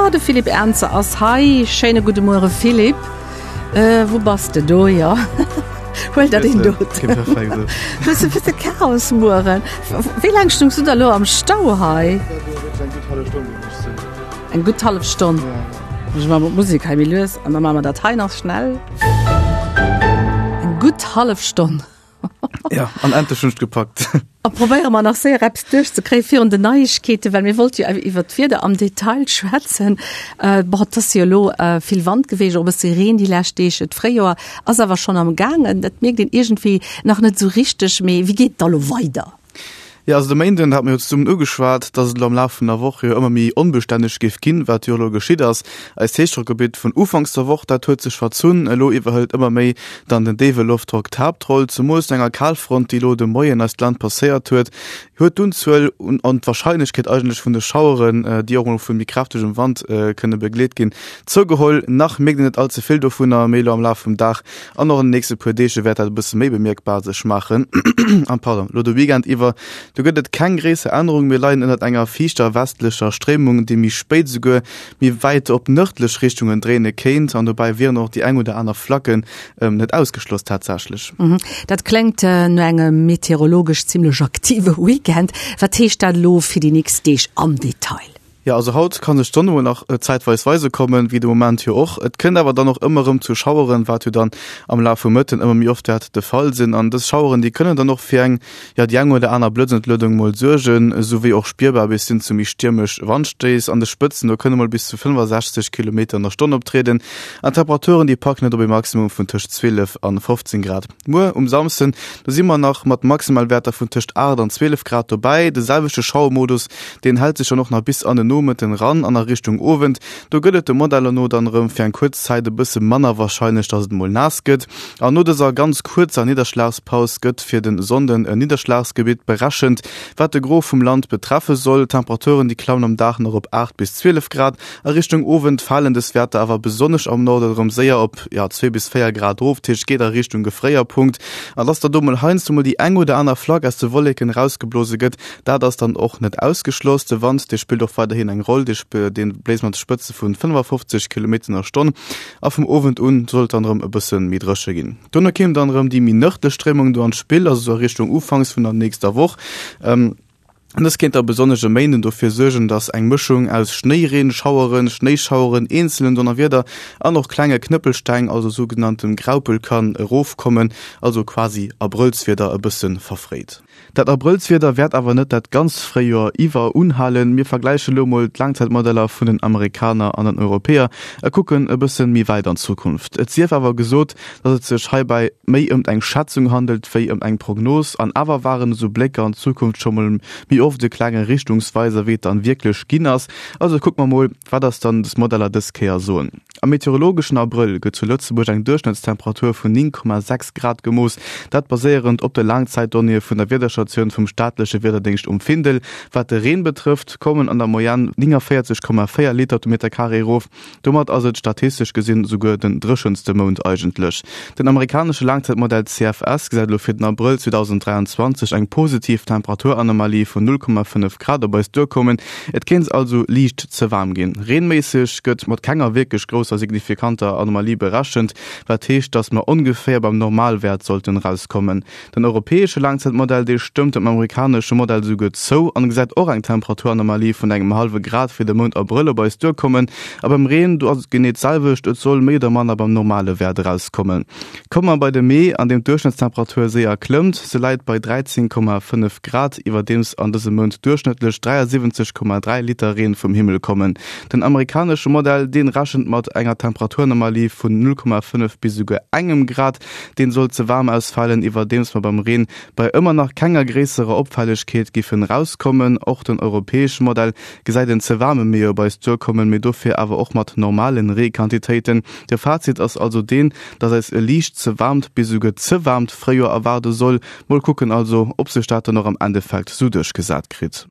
Jo, de Philippe Ernzer ass hei. Schéine gudde Muere Philippe. Wou bass de? Do, jo. Huel der deen do. Hues e bësse Chaos mueren. Wéi laang stungs du da lo am Stau hei? Eng gutt hallef Stonn. Ech maache mol d'Musek hei méi lues an da maache mer dat hei nach schnell. Eng gutt hallef Stonn. Ja, an endlech hunn ech gepackt. A probéiere mer nach séier eppes duerchzekréie virun den Neiegkeeten, well mir wollte jo iwwer d'Wieder am Detail schwätzen. Bon, et ass jo elo vill Wand geweecht, och e bësse Reen déi lescht Deeg. D'Fréijoer ass awer schonn am gaangen. Dat mierkt een iergendwéi nach net esou richteg. Mee wéi geet et da lo weider? Jo, also de Méinden hate mir jo zesummen ugeschwat, dass et elo am Laf vun der Woch jo ëmmer méi onbestänneg géif ginn, wat jo elo geschitt ass. Eist Héichdrockgebitt vun ufanks der Woch, dat huet sech verzunn. Elo iwwerhëlt ëmmer méi dann den déiwe Loftdrock d'Haaptroll. Zemools no enger Kalfront, déi elo de Moien eist Land passéiert huet, huet d'Unzuel un an d'Warscheinlechkeet eigentlech vun de Schaueren, déi och mol vu méi kräftegem Wand kënne begleet ginn, zougeholl. Nach mierkt een net all ze vill dovunner, mee elo am Laf vum Dag An och an den nächste puer Deeg wäert dat e bësse méi bemierkbar sech maachen. An pardon, lo de Weekend iwwer, do gëtt et keng gréisser Ännerung. Mir leien ënnert enger fiichter westlecher Stréimung, déi méi spéit esouguer méi wäit op nërdlech Richtungen dréine kéint. An dobäi wieren och déi eng oder aner Flacken net ausgeschloss tatsächlech. Dat kléngt no engem meteorologesch zimmlech aktive Weekend. Wat heescht dat elo fir déi nächst Deeg am Detail? Jo, also haut ka sech d'Sonn emol nach zäitweis weise kommen, wéi de Moment jo och. Et kënnt awer dann och ëmmer erëm zu Schaueren, wat jo dann am Laf vum Mëtten ëmmer méi oft wäert de Fall sinn. An dës Schaueren, déi kënnen dann och fir eng, jo, déi eng oder aner Blëtzentluedung mol suergen, esou wéi och spierbar bis hin zu méi stiermesch Wandstéiss. An de Spëtzen, do kënne mol bis zu 65 Kilometer an der Stonn optrieden. An d'Temperaturen, déi packen et op ee Maximum vun tëscht 12 an 15 Grad. Muer um Samsden, do si mer nach mat Maximalwäerter vun tëscht 8 an 12 Grad dobäi. De selwechte Schauermodus, deen hält sech dann och nach bis an de Nomëtten ran an a Richtung Owend. Do gëtt et de Modeller no dann erëm fir eng kuerz Zäit e bësse manner warscheinlech, dass et mol naass gëtt. An no dëser ganz kuerzer Nidderschlagspaus gëtt fir de Sonnden e Nidderschlagsgebitt berechent, wat de Gros vum Land betreffe soll. D'Temperaturen, déi klammen am Dag nach op 8 bis 12 Grad. A Richtung Owend falen dës Wäerter awer besonnesch am Norde erëm séier op, jo, 2 bis 4 Grad erof, dat heescht, et geet a Richtung Gefréierpunkt. An dass da do mol heiansdo mol déi eng oder aner Flack aus de Wolleken erausgeblose gëtt, dat ass dann och net ausgeschloss. De Wand, dee spillt och weiderhin eng Roll, dee bléist mat Spëtze vu 55 Kilometer an der Stonn. A vum Owend un soll et dann erëm e bësse méi dréche ginn. Dono kéim dann erëm déi méi nërdlech Stréimung do an d'Spill, also sou a Richtung ufanks vun der nächster Woch. Dës kéint da besonnesch e Méinden dofir suergen, dass eng Mëschung aus Schnéireen, Schaueren, Schnéischaueren, eenzelen Donnerwieder an och klenge Knëppelsteng, also sougenanntem Graupel, kann erofkommen, also quasi Abrëllswieder e bësse verfréit. Dat Abrëllswieder wäert awer net dat ganzt Fréijoer iwwer unhalen. Mir vergläiche lo mol d'Laangzäitmodeller vun den Amerikaner an den Europäer a kucken e bësse méi wäit an d'Zukunft. Et sief awer gesot, dass et sech heibäi méi ëmt eng Schätzung handelt wéi ëm eng Prognos, an awer waren esou Blécker an d'Zukunft scho mol méi oft e klenge Richtungsweiser wéi et dann wierklech ginn ass. Also kucke mer mol, wat eis dann des Modeller dës Kéier soen. Am meteorologeschen Abrëll gëtt zu Lëtzebuerg eng Duerchschnëttstemperatur vun 9,6 Grad gemooss, dat baséierend op de Laangzäitdonnéeë vun der Wiederstatioun vum staatleche Wiederdéngscht um Findel. Wat de Reen betrëfft, kommen an der Moyenne 49,4 Liter op de Meterkaree erof. Domat ass et statistesch gesinn esouguer den dréchenste Mount eigentlech. Den amerikanesche Laangzäitmodell CFS gesäit elo fir den Abrëll 2023 eng positiv Temperaturanomalie vun 0,5 Grad op eis duerkommen. Et kéint also liicht ze waarm ginn. Reenméisseg gëtt mat kenger wierklech grousser signifikanter Anomalie berechent, wat heescht, dass mer ongeféier beim Normalwäert sollten erauskommen. Den europäesche Laangzäitmodell, dee stëmmt dem amerikanesche Modell esouguer zou an gesäit och eng Temperaturanomalie vun engem hallwe Grad fir de Mount Abrëll op eis duerkommen. A beim Reen, do ass et genee d'selwecht, et soll méi oder manner beim normale Wäert erauskommen. Komme mer bei de Mee, an deem d'Duerchschnëttstemperatur séier klëmmt, se läit bei 13,5 Grad, iwwerdeems an dësem Mount duerchschnëttlech 73,3 Liter Reen vum Himmel kommen. Den amerikanesche Modell, dee rechent mat enger Temperaturanomalie vun 0,5 bis esouguer engem Grad. Deen soll ze waarm ausfalen, iwwerdeems mer beim Reen bei ëmmer nach kenger gréisserer Opfällegkeet giffen rauskommen. Och den europäesche Modell gesäit en ze waarme Mee op eis duerkommen, mee dofir awer och mat normalen Reequantitéiten. De Fazit ass also deen, dass eis e liicht ze waarmt bis esouguer ze waarmt Fréijoer erwaarde soll. Mol kucken also, ob sech dat dann och am Endeffekt sou duerchgesat kritt.